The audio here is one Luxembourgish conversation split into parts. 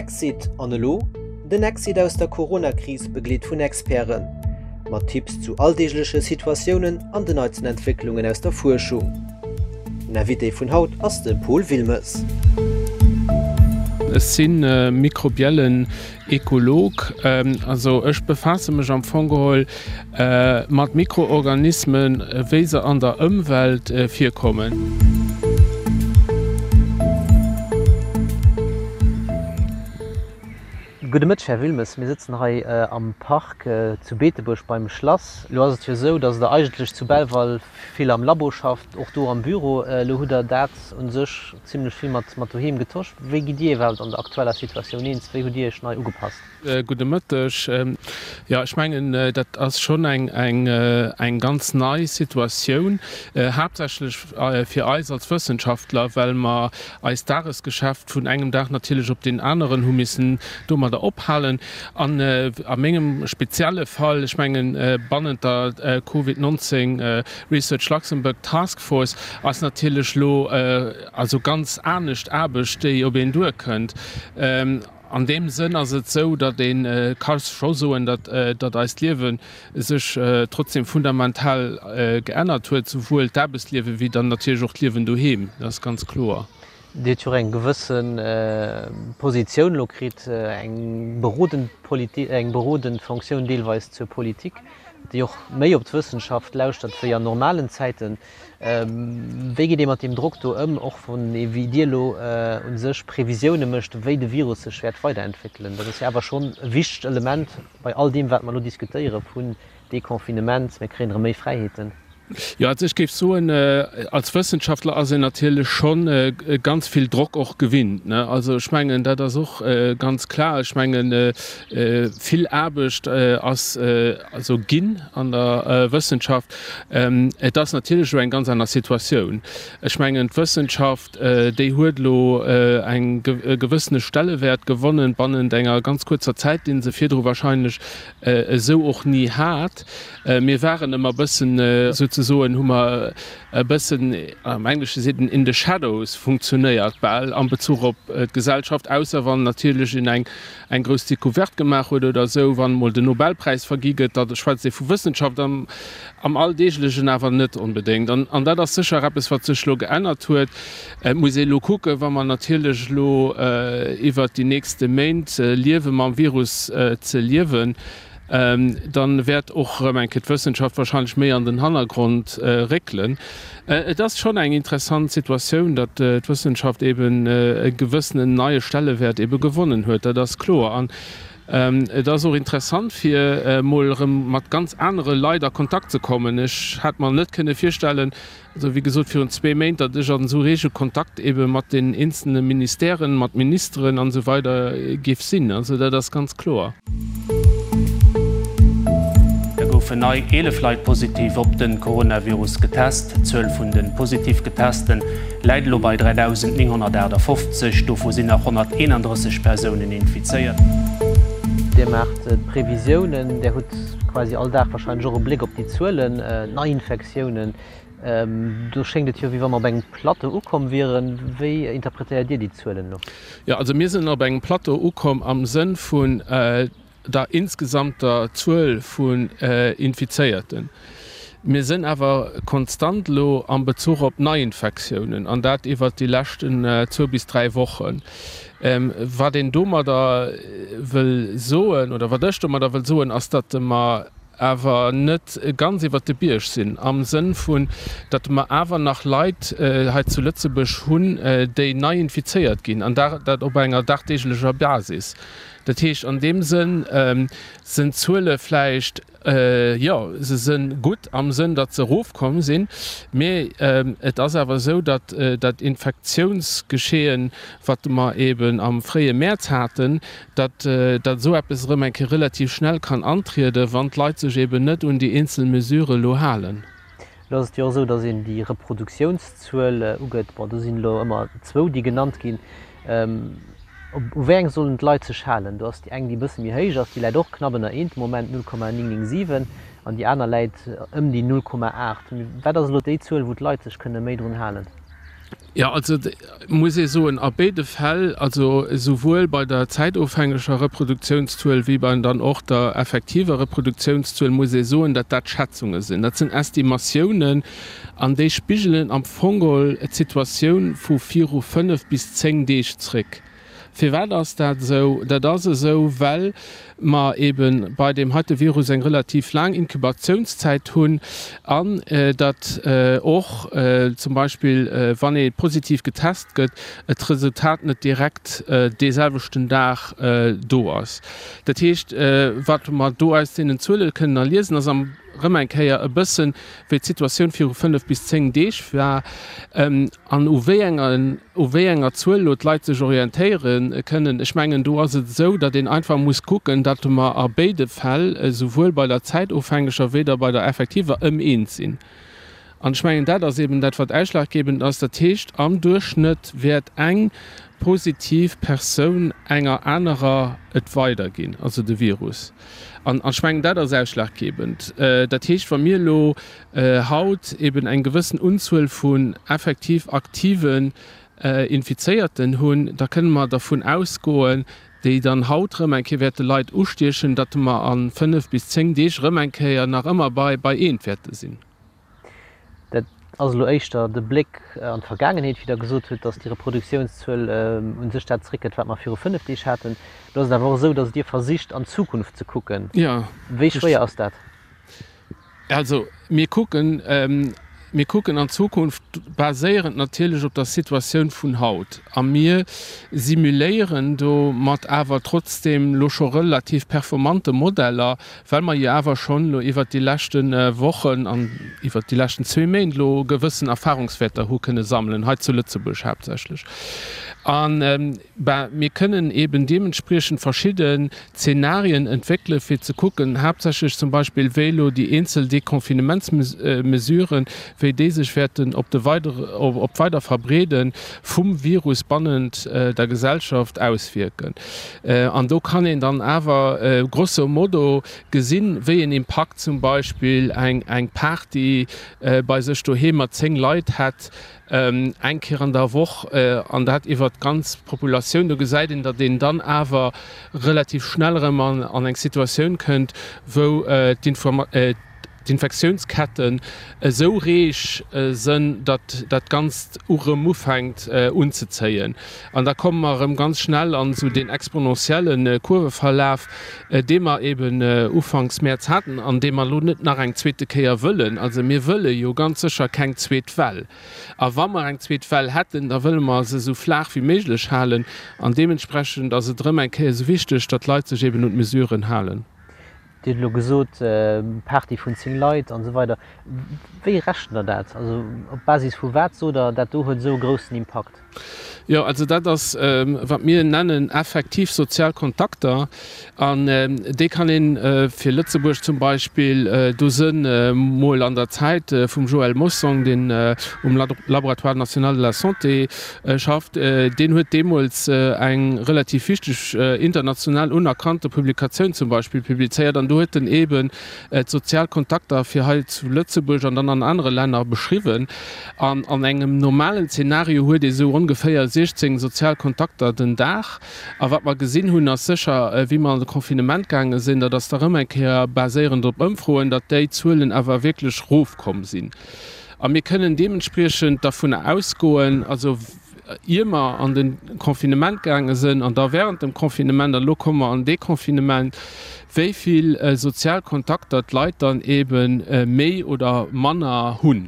Exit an elo? Den Exit aus der Corona-Kris begleet vun Experten. Mat Tipps zu alldeegleche Situatiounen an den neitsten Entwécklungen aus der Fuerschung. Den Invité vun haut ass de Paul Wilmes. Ech si mikrobiellen Ekolog. Also ech befaasse mech am Fong geholl mat Mikroorganismen, wéi se an der Ëmwelt virkommen. Gudde Mëtteg, Här Wilmes. Mir sëtzen hei am Park zu Beetebuerg beim Schlass. Elo ass et jo esou, datt Der eigentlech zu Belval vill am Labo schafft, och do am Büro. Elo hutt Der dat u sech zimlech vill mat mat doheem getosch. Wéi gitt Dir iwwerhaupt an der aktueller Situatioun eens? Wéi hutt Dir Iech nei ugepasst? Gudde Mëtteg. Jo, ech mengen, dat ass schonn eng ganz nei Situatioun, haaptsächlech fir eis als Wëssenschaftler, well mer eist Dagesgeschäft vun engem Dag natierlech op deen aneren hu missen domadder ophalen. An a mengem spezielle Fall, ech mengen, bannent der Covid 19 Research Luxembourg Task Force ass natierlech elo also ganz anescht Aarbecht, déi op een duerkënnt. An deem Sënn ass et esou, datt ee ka scho soen, datt datt eist Liewe sech trotzdem fundamental geännert huet, souwuel d'Aarbechtsliewe wéi dann natierlech och d'Liewen doheem, dat ass ganz kloer. Dir hutt jo och eng gewësse Positioun elo kritt, eng berodend Politi-, eng berodend Fonctioun deelweis zur Politik, déi och méi op d'Wëssenschaft lauschtert wéi an normalen Zäiten. Wéi geet ee mat deem Drock do ëm, och wann ee wéi Dir elo u sech Previsioune mécht, wéi de Virus sech wäert weiderentwéckelen? Dat ass jo awer schonn e wichtegt Element bei all deem, wat mer elo diskutéiere vun Deconfinement, mir kréien erëm méi Fräiheeten. Jo, also ech géif soen, als Wëssenschaftler ass een natierlech schonn ganz vill Drock och gewinnt, ne. Also ech mengen, dat ass och ganz klar. Ech mengen, vill Aarbecht ass also ginn an der Wëssenschaft. Et ass natierlech elo eng ganz aner Situatioun. Ech mengen, d'Wëssenschaft, déi huet elo eng e gewëssene Stellewäert gewonnen bannent enger ganz kuerzer Zäit, dee se virdru wahrscheinlech esou och ni hat. Mir waren ëmmer e bëssen, souzesoen hu mer e bëssen, am Englesche seet een in the shadows funktionéiert bal am Bezuch op d'Gesellschaft, ausser wann natierlech een eng eng grouss Decouverte gemaach huet oder esou, wann emol den Nobelpräis vergi gëtt, da schwätzt ee vu Wëssenschaft, am am Alldeeglechen awer net onbedéngt. An an dat ass sécher eppes, wat sech elo geännert huet. Et muss ee elo kucken, wa mer natierlech elo iwwert déi nächste Méint liewe mam Virus ze liewen, dann wäert och erëm eng Kéier d'Wëssenschaft wahrscheinlech méi an den Hannergrond réckelen. Et ass schonn eng interessant Situatioun, datt d'Wëssenschaft eben e gewëssenen neie Stellewäert ebe gewonnen huet, dat ass kloer. An et ass och interessant, fir emol erëm mat ganz anere Leit a Kontakt ze kommen. Ech hat mer net kënne virstellen, Also wéi gesot virun zwee Méint, datt ech an esou rege Kontakt ebe mat den eenzelne Ministèren, mat Ministeren an esou weider géif sinn. Also dat ass ganz kloer. Da goufen nei 11 Leit positiv op de Coronavirus getest. D'Zuel vun de positiv Getesten läit elo bei 3.958, dovu sinn nach 131 Persounen infizéiert. Dir maacht d'Previsiounen, Dir hutt quasi all Dag warscheinlech och e Bléck op déi Zuelen, d'Neiinfektiounen. Do schéngt et jo, wéi wa mer op engem Plateau ukomm wieren. Wéi interpretéiert Dir déi Zuelen elo? Jo, also mir sinn op engem Plateau ukomm am Sënn vun der insgesamter Zuel vun Infizéierten. Mir sinn awer konstant elo am Bezuch op Neiinfektiounen, an dat iwwert déi leschten zwou bis dräi Wochen. Wat een domadder wëll soen, oder wat ech domadder wëll soen, ass, datt mer awer net ganz iwwert de Bierg sinn, am Sënn vun, datt mer awer nach Leit hei zu Lëtzebuerg hunn, déi nei infizéiert ginn, an dat op enger dagdeeglecher Basis. Dat heescht, an deem Sënn sinn d'Zuele vläicht, jo, se si gutt am Sënn, datt se erofkomm sinn, mee et ass awer esou, datt dat Infektiounsgeschehen, wat mer eeben am fréie Mäerz haten, datt datt esou eppes erëm eng Kéier relativ schnell kann antrieden, wann d'Leit sech eben net un déi eenzel Mesurë elo halen. Elo ass et jo och esou, datt een déi Reproduktiounszuel ugëtt. Bon, do sinn elo ëmmer zwou, déi genannt ginn. U wéi eng sollen d'Leit sech halen? Do ass déi eng, déi e bësse méi héich ass, déi läit och knapp ënner eent de Moment, 0,997, an déi aner läit ëm déi 0,8. Wat ass elo déi Zuel, wou d'Leit sech kënne méi drun halen? Jo, also muss ee soen, a béide Fäll, also esouwuel bei der zäitofhängeger Reproduktiounszuel wéi bei dann och der effektiver Reproduktiounszuel, muss ee soen, datt dat Schätzunge sinn. Dat sinn Estimatiounen an déi spigelen am Fong geholl d'Situatioun vu viru 5 bis 10 Deeg zréck. Firwat ass dat esou? Dat ass esou, well mer eebe bei deem heite Virus eng relativ laang Inkubatiounszäit hunn an datt och zum Beispill, wann ee positiv getest gëtt, et d'Resultat net direkt dee selwechten Dag do ass. Dat heescht, wat mer do aus deenen Zuele kënnen erliesen, ass am erëm eng Kéier e bëssen, wéi d'Situatioun viru 5 bis 10 Deeg war an u wéi enger, u wéi enger Zuel elo d'Leit sech orientéiere kënnen. Ech mengen, do ass et esou, datt een einfach muss kucken, datt mer a béide Fäll, esouwuel bei der zäitofhängeger wéi da bei der effektiver, ëm eens sinn. An ech mengen, dat ass eben dat, wat ausschlaggebend ass. Dat heescht, am Duerchschnëtt wäert eng positiv Persoun enger anerer et weiderginn, also de Virus. An ech mengen, dat ass ausschlaggebend. Dat heescht, wa mir elo haut eben eng gewëssen Unzuel vun effektiv aktiven Infizéierten hunn, da kënne mer dervun ausgoen, déi dann haut erëm eng Kéier wäerte Leit ustiechen, datt mer a 5 bis 10 Deeg erëm eng Kéier nach ëmmer bei eent wäerte sinn. Dat ass elo éischter de Bléck an d'Vergaangenheet, wéi Der gesot hutt, datt déi Reproduktiounszuel u sech dat zeréckgëtt, wat mer viru 5 Deeg haten. Elo ass et awer och esou, datt Dir versicht, an d'Zukunft ze kucken. Wéi schwéier ass dat? Also mir kucken, mir kucken an d'Zukunft, baséierend natierlech op der Situatioun vun haut. A mir simuléieren do mat awer trotzdeem elo scho relativ performante Modeller, well mer jo awer schonn elo iwwert déi leschte Wochen an iwwert déi leschten zwee Méint elo gewëssen Erfahrungswäerter hu kënne sammelen, hei zu Lëtzebuerg haaptsächlech. A ben, mir kënnen eeben deementspriechend verschidden Zenarien entwéckele fir ze kucken, haaptsächlech zum Beispill, wéi elo déi eenzel Deconfinementsmesuren, wéi déi sech wäerten op de weidere, op d'weider Verbreede vum Virus bannent der Gesellschaft auswierken. An do kann een dann awer grosso modo gesinn, wéi een Impakt zum Beispill eng Party bei sech doheem mat 10 Leit hätt, eng Kéier an der Woch, an dat iwwert d'ganz Populatioun. Do gesäit een, datt een dann awer relativ schnell erëm an eng Situatioun kënnt, wou d'Infektiounsketten esou reeg sënn, datt dat Ganzt erëm ufänkt unzezéien. An da komme mer erëm ganz schnell an esou deen exponentielle Kurveverlaf, dee mer eben ufanks Mäerz haten an dee mer elo net nach eng zweete Kéier wëllen. Also mir wëlle jo ganz sécher keng zweet Well. A wa mer eng zweet Well hätten, da wëlle mer se esou flaach wéi méiglech halen. An deementsprechend ass et erëm eng Kéier esou wichteg, datt d'Leit sech eben un d'Mesuren halen. Dir hutt elo gesot, Party vun 10 Leit an esou weider. Wéi rechent Der dat? Also op Basis vu wat sot Der, dat do huet esou e groussen Impakt? Jo, also dat ass, wat mir nennen effektiv sozial Kontakter. An déi kann ee fir Lëtzebuerg zum Beispill, do sënn mol an der Zäit vum Joël Mossong, deen um Laboratoire national de la santé schafft, deen huet deemools eng relativ wichteg international unerkannte Publikatioun zum Beispill publizéiert an do huet en eeben d'sozial Kontakter fir hei zu Lëtzebuerg an dann an anere Länner beschriwwen. An an engem normalen Zeenario huet ee sou ongeféier 16 sozial Kontakter den Dag. A wat mer gesinn hunn, ass sécher, wéi mer an de Confinement gaange sinn, dat ass da rëm eng Kéier baséierend op Ëmfroen, datt déi Zuelen awer wierklech rofkomm sinn. A mir kënnen deementspriechend dervunner ausgoen, also ier mer an de Confinement gaange sinn an da während dem Confinement, an elo komme mer an Deconfinement, wéi vill sozial Kontakter d'Leit dann eebe méi oder manner hunn.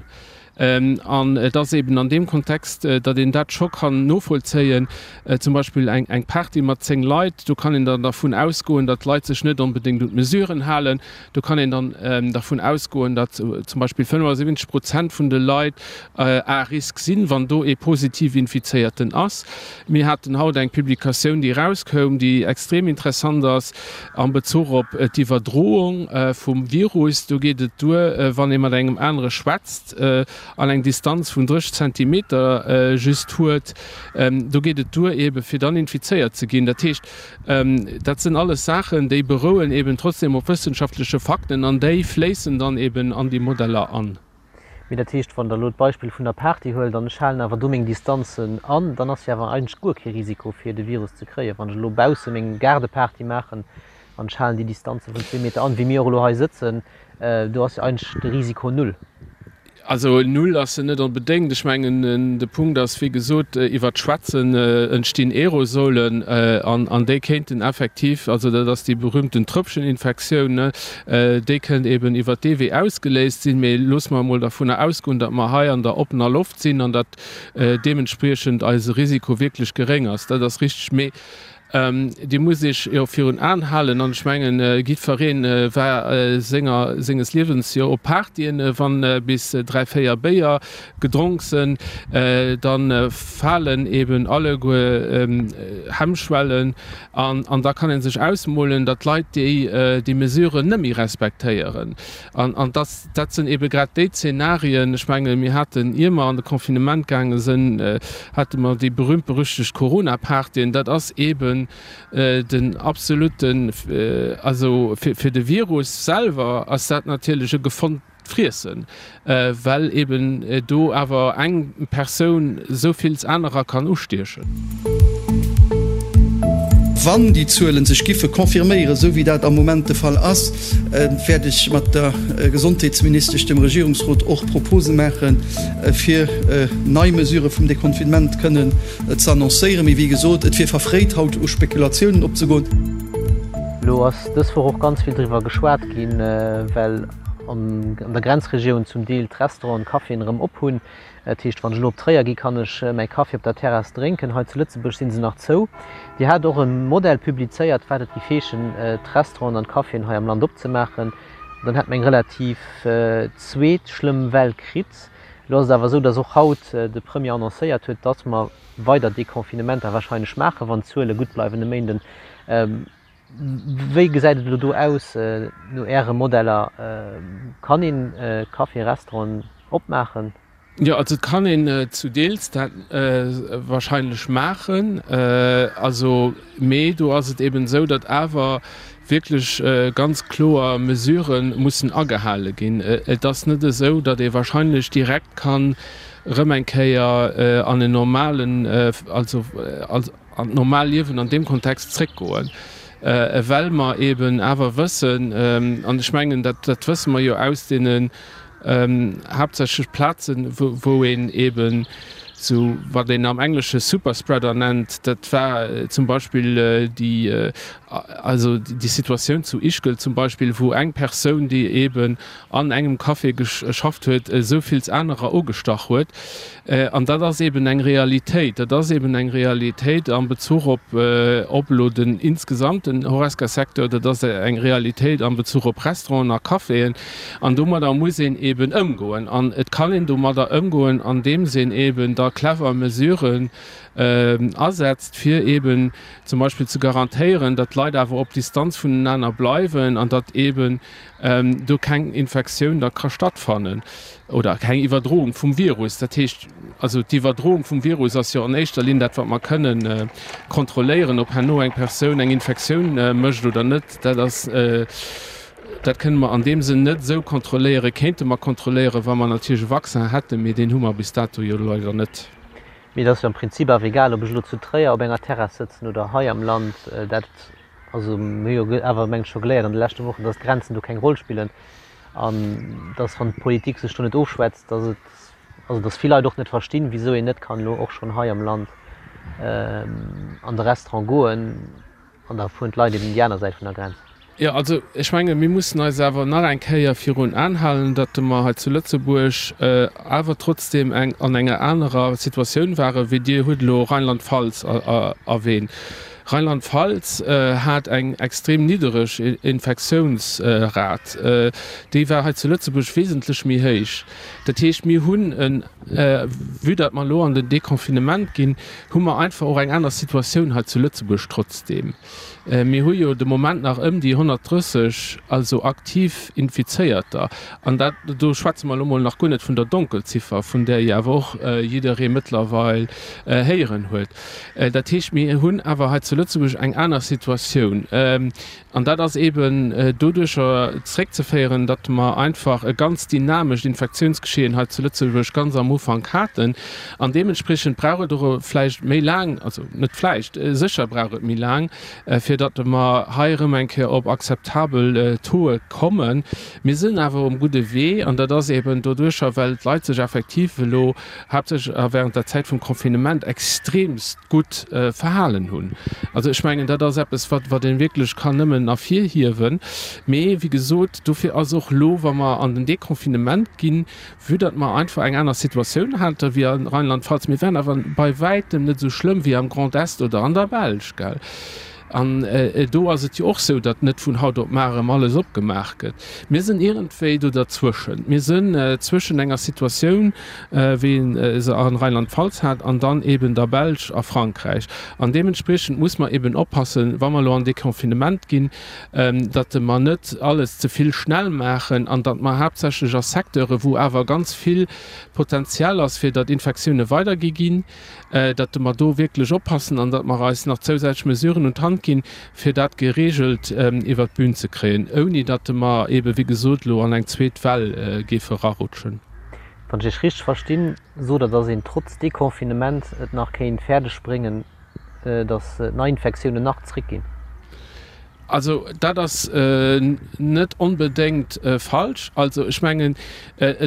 An et ass eben an deem Kontext, datt een dat scho kann novollzéien, zum Beispill eng Party mat 10 Leit, do kann een dann dervun ausgoen, datt d'Leit sech net onbedéngt un d'Mesuren halen. Do kann een dann dervun ausgoen, datt zum Beispill 75 Prozent vun de Leit à risque sinn, wann do ee positiv Infizéierten ass. Mir haten haut eng Publikatioun, déi erauskoum, déi extrem interessant ass am Bezuch op d'Iwwerdroung vum Virus. Do geet et duer, wann ee mat engem anere schwätzt an eng Distanz vun 30 Zentimeter just huet, do geet et duer eebe fir dann infizéiert ze ginn. Dat heescht, dat sinn alles Saachen, déi berouen eeben trotzdem op wëssenschaftleche Fakten an déi fléissen dann eeben an déi Modeller an. Mee dat heescht, wann Der elo d'Beispill vun der Party huelt an ech halen awer do meng Distanzen an, dann ass jo awer eigentlech guer kee Risiko fir de Virus ze kréien. Wann ech elo bausse meng Gaardeparty maachen an ech halen déi Distanze vun zwee Meter an, wéi mir och elo hei sëtzen, do ass jo eigentlech de Risiko null. Also null ass en net onbedéngt. Ech mengen, de Punkt ass, wéi gesot, iwwer d'Schwätzen entstinn Aerosolen an déi kéinten effektiv, also dat ass déi berühmten Tröpfcheninfektioun, déi kënnt eben iwwer dee Wee ausgeléist sinn. Mee loosse mer emol dervunner ausgoen, datt mer hei an der oppener Loft sinn an datt deementspriechend eise Risiko wierklech geréng ass. Dat ass richteg. Mee Dir musst Iech jo virun Aen halen, an ech mengen, jiddferee war senger, senges Liewens jo op Partyen, wann bis 3, 4 Béier gedronk sënn, da falen eben alleguer Hemmschwellen an, an da kann ee sech ausmolen, datt d'Leit déi, déi Mesuren net méi respektéieren. An, an dass, dat sënn ebe grad déi Zenarien, ech menge mir haten, ier mer an de Confinement gaange sënn, hate mer déi berühmt-berüchtegt Corona-Partyen. Dat ass eben den absoluten, also fir, fir de Virus selwer ass dat natierlech e gefonnt Friessen, well eben do awer eng Persoun esou vills anerer kann ustiechen. Wann déi Zuele sech giffe confirméieren, esou wéi dat am Moment de Fall ass, wäert ech mat der Gesondheetsministesch dem Regierungsrot och Propose maachen, fir nei Mesurë vum Deconfinement kënnen ze annoncéieren. Mee wéi gesot, et wier verfréit, haut u Spekulatiounen opzegoen. Elo ass dës Woch och ganz vill driwwer geschwat ginn, well an der Grenzregioun zum Deel d'Restauranten, d'Caféen erëm op hunn. Dat heescht, wann ech elo op Tréier gi kann ech mäi Kaffi op der Terrass drénken. Hei zu Lëtzebuerg si se nach zou. Dir hat och e Modell publizéiert, wat et géif heeschen, d'Restauranten an d'Caféen hei am Land opzemaachen. Dann hätt mer eng relativ zweet schlëmm Well kritt. Elo ass et awer esou, datt och haut de Premier annoncéiert huet, datt mer weider Deconfinementer warscheinlech maachen, wann d'Zuele gutt bleiwen e Méinden. Wéi gesäit et elo do aus no Äre Modeller? Kann een Caféen, Restauranten opmaachen? Jo, also et kann een zu Deels dat wahrscheinlech maachen. Also, mee do ass et eben esou, datt awer wierklech ganz kloer Mesurë mussen agehale ginn. Et ass net esou, datt ee wahrscheinlech direkt kann erëm eng Kéier an en normalen, also an d'normal Liewen an deem Kontext zréckgoen, well mer eben awer wëssen, an ech mengen, dat dat wësse mer jo aus deenen haaptsächlech Plazen, wou een eben esou, wat een am Englesche Superspreader nennt, dat war zum Beispill déi, also déi Situatioun zu Ischgl zum Beispill, wou eng Persoun, déi eben an engem Café geschafft huet, esou vills anerer ugestach huet. An dat ass eben eng Realitéit. Dat ass eben eng Realitéit am Bezuch op, op elo den insgesamten Horesca-Secteur. Dat ass eng Realitéit am Bezuch op Restauranten a Caféen. An domadder muss een eben ëmgoen. An et kann een domadder ëmgoen, andeems een eben da clever Mesuren asetzt, fir eben zum Beispill ze garantéieren, datt d'Leit awer op Distanz vunenaner bleiwen an datt eben do keng Infektioun da ka stattfannen oder keng Iwwerdroung vum Virus. Dat heescht also, d'Iwwerdroung vum Virus ass jo an éischter Linn dat, wat mer kënnen kontrolléieren. Ob herno eng Persoun eng Infektioun mécht oder net, dat ass, dat kënne mer an deem Sënn net esou kontrolléieren. Kéinte mer kontrolléieren, wa mer natierlech e Vaccin hätten, mee deen hu mer bis dato jo leider net. Mee et ass jo am Prinzip awer egal, ob ech elo zu Tréier op enger Terrass sëtzen oder hei am Land. Dat Also mir hu jo awer meng ech scho geléiert an de leschte Wochen, datt d'Grenzen do keng Roll spillen an datt wann d'Politik sech do net ofschwätzt, datt et, also datt vill Leit och net verstinn, wisou een net kann elo och schonn hei am Land an de Restaurant goen an da fueren d'Leit eben déi aner Säit vun der Grenz. Jo, also ech menge mir mussen eis awer nach eng Kéier virun Aen halen, datt mer hei zu Lëtzebuerg awer trotzdeem eng an enger anerer Situatioun ware wéi Dir hutt elo Rheinland-Pfalz erwähnt. Rheinland-Pfalz hat eng extrem niddereg Infektiounsrat. Déi war hei zu Lëtzebuerg wesentlech méi héich. Dat heescht, mir hunn en, vue datt mer elo an den Deconfinement ginn, hu mer einfach och eng aner Situatioun hei zu Lëtzebuerg trotzdeem. Mir hu jo de Moment nach ëm déi 130, also aktiv Infizéierter. An dat, do schwätze mer elo mol nach guer net vun der Donkelziffer, vun där jo awer och jidderee mëttlerweil héieren huet. Dat heescht, mir hunn awer hei zu. zu Lëtzebuerg eng aner Situatioun. An dat ass eeben doduercher zréckzeféieren, datt mer einfach e ganz dynamescht Infektiounsgeschehen hei zu Lëtzebuerg ganz am Ufank haten. An deementspriechend brauch et och vläicht méi laang, also net vläicht, sécher brauch et méi laang, fir datt mer hei erëm eng Kéier op akzeptabel Tauxe kommen. Mir sinn awer um gudde Wee, an dat ass eeben doduercher, well d'Leit sech effektiv elo haaptsächlech a während der Zäit vum Confinement extremst gutt verhalen hunn. Also ech mengen, dat ass eppes, wat wat ee wierklech kann nëmmen ervirhiewen. Mee wéi gesot, dofir ass och elo, wa mer an den Deconfinement ginn, vue datt mer einfach eng aner Situatioun hate wéi a Rheinland-Pfalz, mir waren awer bei wäitem net esou schlëmm wéi am Grand Est oder an der Belsch, gell. An do ass et jo och esou, datt net vun haut op mar erëm alles opgemaach gëtt. Mir sinn iergendwéi do derzwëschen. Mir sinn zwëschen enger Situatioun, wéi ee se a Rheinland-Pfalz hat, an dann eeben der Belsch a Frankräich. An deementspriechend muss mer eeben oppassen, wa mer elo an Deconfinement ginn, datt mer net alles ze vill schnell maachen an datt mer haaptsächlech a Secteure wou awer ganz vill Potenzial ass, fir datt Infektioune weidergi ginn, datt mer do wierklech oppassen an datt mer eis nach zousätzlech Mesuren un d'Hand ginn, fir dat geregelt iwwert d'Bün ze kréien, ouni datt mer eebe wéi gesot elo an eng zweet Well géife erarutschen. Wann ech Iech richteg verstinn, sot Der, datt een trotz Deconfinement et nach kéint fäerdeg bréngen, datt d'Neiinfektiounen nach zréckginn? Also dat ass net onbedéngt falsch. Also ech mengen,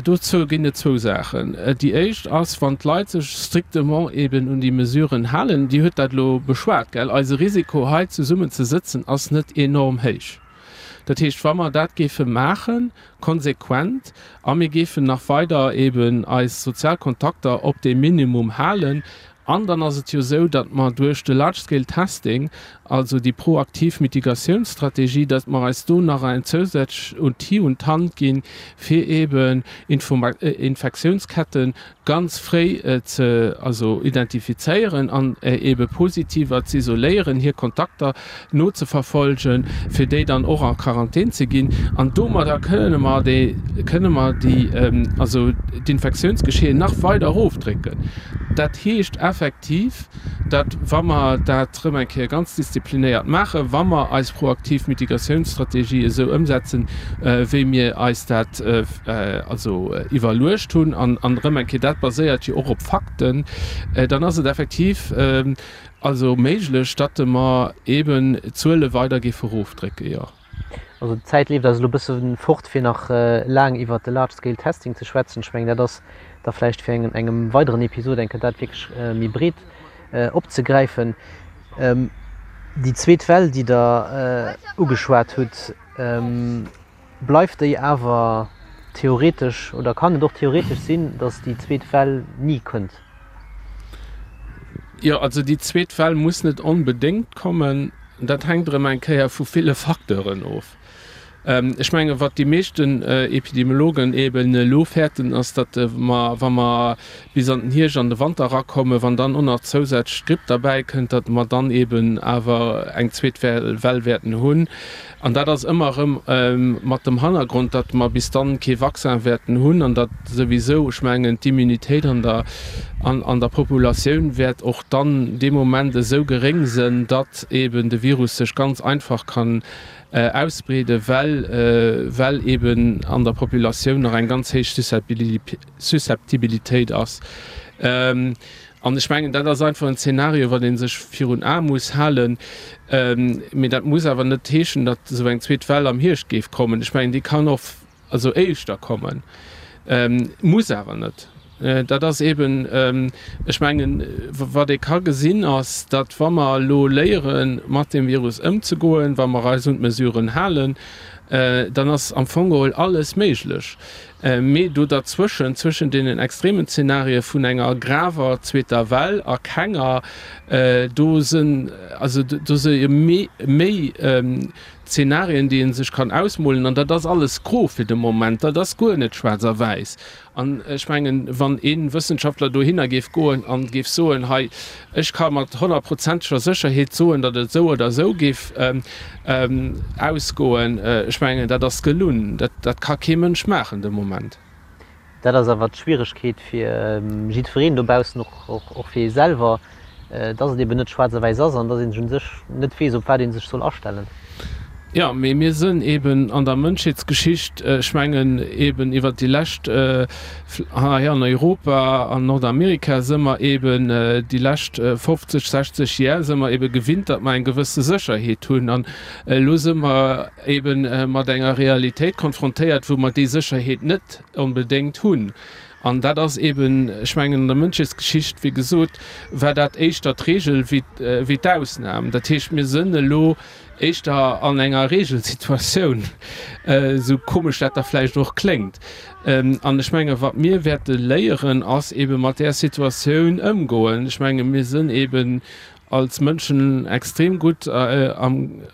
dozou ginn et zwou Saachen. Déi éischt ass, wann d'Leit sech strictement eben un déi Mesuren halen, Dir hutt dat elo beschwat, gell, eise Risiko hei zesummen ze sëtzen ass net enorm héich. Dat heescht, wa mer dat géife maachen, konsequent, a mir géifen nach weider eben eis sozial Kontakter op deem Minimum halen, An dann ass et jo esou, datt mer duerch de Large Scale Testing, also déi proaktiv Mitigatiounsstrategie, datt mer eis do nach en zousätzlech Outil un d'Hand ginn, fir eeben Infektiounsketten ganz fréi ze, also identifizéieren an eebe Positiver z'isoléieren, hir Kontakter nozeverfolgen, fir déi dann och a Quarantän ze ginn. An domadder kënne mer déi, kënne mer déi, also d'Infektiounsgeschehen nach weider erofdrécken. Dat heescht effektiv, datt, wa mer dat erëm eng Kéier ganz disziplinéiert maachen, wa mer eis proaktiv Mitigatiounsstrategie esou ëmsetzen, wéi mir eis dat also iwwerluecht hunn, an erëm eng Kéier, dat baséiert jo och op Fakten, dann ass et effektiv also méiglech, datt mer eeben d'Zuele weider géife erofdrécken, jo. Also d'Zäit leeft eis elo e bësse fort, fir nach laang iwwert de Large Scale Testing ze schwätzen. Ech mengen, dat ass da vläicht fir eng engem weideren Episod eng Kéier dat wierklech méi breet opzegräifen. Déi zweet Well, déi Der ugeschwat hutt, bleift déi awer theoretesch oder kann et och theoretesch sinn, datt déi zweet Well ni kënnt? Jo, also déi zweet Well muss net onbedéngt kommen. Dat hänkt erëm eng Kéier vu ville Facteuren of. Ech menge wat déi meeschten Epidemiologen eeben elo fäerten, ass, datt mer, wa mer bis an den Hierscht, an de Wanter erakommen, wann dann och nach zousätzlech d'Gripp derbäi kënnt, datt mer dann eeben awer eng zweet Well wäerten hunn. An dat ass ëmmer erëm mat dem Hannergrond, datt mer bis dann kee Vaccin wäerten hunn an datt souwisou, ech mengen, d'Immunitéit an der, an der Populatioun wäert och dann dee Moment esou geréng sënn, datt eeben de Virus sech ganz einfach kann ausbreeden, well, well eeben an der Populatioun nach eng ganz héich Susceptibilitéit ass. An ech mengen, dat ass einfach en Zeenario, wat ee sech virun Ae muss halen. Mee dat muss awer net heeschen, datt esou eng zweet Well am Hierscht géif kommen. Ech mengen, déi kann och also éischter kommen, muss awer net. Dat ass eeben, ech mengen, wat ee ka gesinn, ass, datt wa mer elo léieren, mat deem Virus ëmzegoen, wa mer eis un d'Mesuren halen, dann ass am Fong geholl alles méiglech. Mee do derzwëschen, zwëschen deenen extremen Zenarie vun enger graver zweeter Well a kenger, do sinn, also do si jo méi, méi Zenarien, déi ee sech kann ausmolen. An dat ass alles gro fir de Moment, dat ass guer net schwaarz a wäiss. An ech mengen, wann ee Wëssenschaftler dohinner géif goen a géif soen, hei, ech ka mat honnertprozenteger Sécherheet soen, datt et esou oder esou géif ausgoen, ech mengen, dat ass gelunn. Dat, dat ka kee Mënsch maachen de Moment. Dat ass awer d'Schwieregkeet fir jiddwereen dobaussen, och, och fir ee selwer. Dass et eben net schwaarz a wäiss ass an dass een sech u sech net weess, op wat ee sech soll astellen. Jo, mee mir sënn eben an der Mënschheetsgeschicht, ech mengen eben iwwert déi lescht, hei an Europa an Nordamerika së mer eben déi lescht 50, 60 Jär së mer ebe gewinnt, datt mer eng gewësse Sécherheet hunn. An elo së mer eben mat enger Realitéit konfrontéiert, wou mer déi Sécherheet net onbedéngt hunn. An dat ass eben, ech mengen, an der Mënschheetsgeschicht, wéi gesot, war dat éischter d'Regel wéi d'Ausnam. Dat heescht, mir sënn elo éischter an enger Regelsituatioun, esou komesch dat da vläicht och kléngt. An ech menge wat mir wäerte léieren, ass ebe mat där Situatioun ëmgoen. Ech menge mir sënn eben als Mënschen extrem gutt am,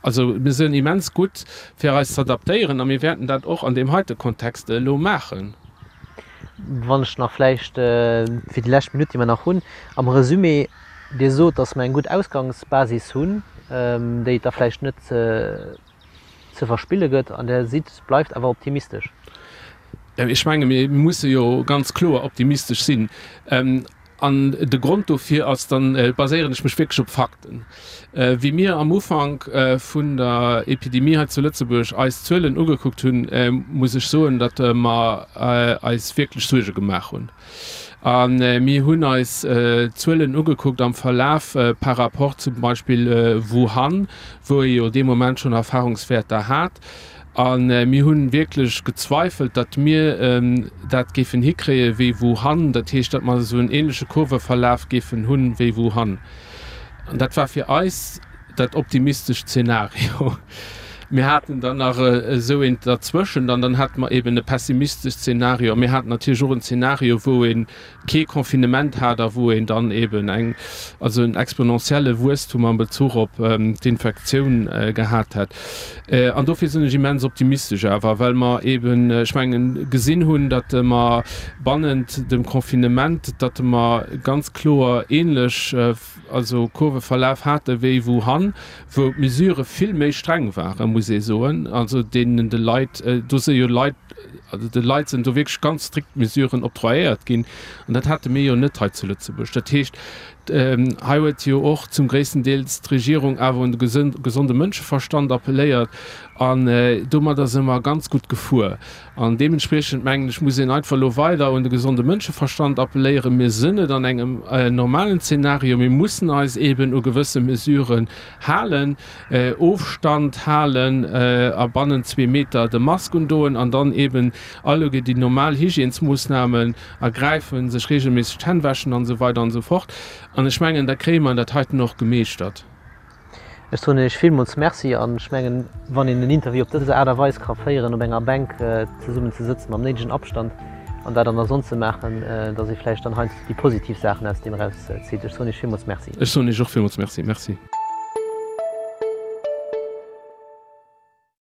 Also mir sinn immens gutt fir eis z'adaptéieren a mir wäerten dat och an deem heite Kontext elo maachen. Wann ech nach vläicht fir déi lescht Minutt, déi mer nach hunn, am Resumé, Dir sot, datt mer eng gutt Ausgangsbasis hunn, déi et da vläicht net ze verspille gëtt, an Der sidd, bleift awer optimistesch. Ech menge mir musse jo ganz kloer optimistesch sinn. An de Grond dofir ass, dann baséieren ech mech wierklech op Fakten, wéi mir am Ufank vun der Epidemie hei zu Lëtzebuerg eis Zuelen ugekuckt hunn, muss ech soen, datt mer eis wierklech Suerge gemaach hunn. A mir hunn eis d'Zuelen ugekuckt am Verlaf par rapport zum Beispill Wuhan, wou ee jo dee Moment schonn Erfahrungswäerter hat. A mir hu wierklech gezweifelt, datt mir dat géifen hikréie wéi Wuhan, dat heescht, datt mer esou en ähnleche Kurveverlaf géifen hu wéi Wuhan. An dat war fir eis dat optimistescht Zeenario. Mir haten dann nach esou eent derzwëschent an dann hate mer eeben e pessimistesch Zeenario. A mir haten natierlech och en Zeenario, wou ee kee Confinement hat a wou een dann eben eng, also en exponentielle Wuesstum am Bezuch op d'Infektioun gehat hätt. An dofir sinn ech immens optimistesch awer, well mer eben, ech mengen, gesinn hunn, datt mer bannent dem Confinement, datt mer ganz kloer ähnlech, also Kurveverlaf hate wéi Wuhan, wou d'Mesurë vill méi streng waren, muss ee soen, also deenen de Leit, do si jo Leit, also de Leit sinn do wierklech ganz strikt Mesuren octroyéiert ginn an dat hate mir jo net hei zu Lëtzebuerg. Dat heescht, hei huet jo och zum gréissten Deels d'Regierung awer un de gesonde Mënscheverstand appelléiert an domadder si mer ganz gutt gefuer. An deementspriechend, mengen ech, muss een einfach elo weider un de gesonde Mënscheverstand appelléieren. Mir sinn net an engem normalen Zeenario. Mir mussen eis eeben u gewësse Mesuren halen, Ofstand halen a bannent zwee Meter de Mask undoen an dann eeben alleguer déi normal Hygiènesmoossnamen ergräifen, sech reegelméisseg d'Hänn wäschen an esou weider an esou fort. An ech mengen, da kréie mer dat heiten och gemeeschtert. Ech soen Iech villmools Merci an ech mengen, wann een en Interview op dës Aart a Weis ka féieren, op enger Bänk zesummen ze sëtzen mam néidegen Abstand an dat an der Sonn ze maachen, datt ee vläicht dann heiansdo déi positiv Saachen aus deem erauszitt. Ech soen Iech villmools Merci. Ech soen Iech och villmools Merci. Merci.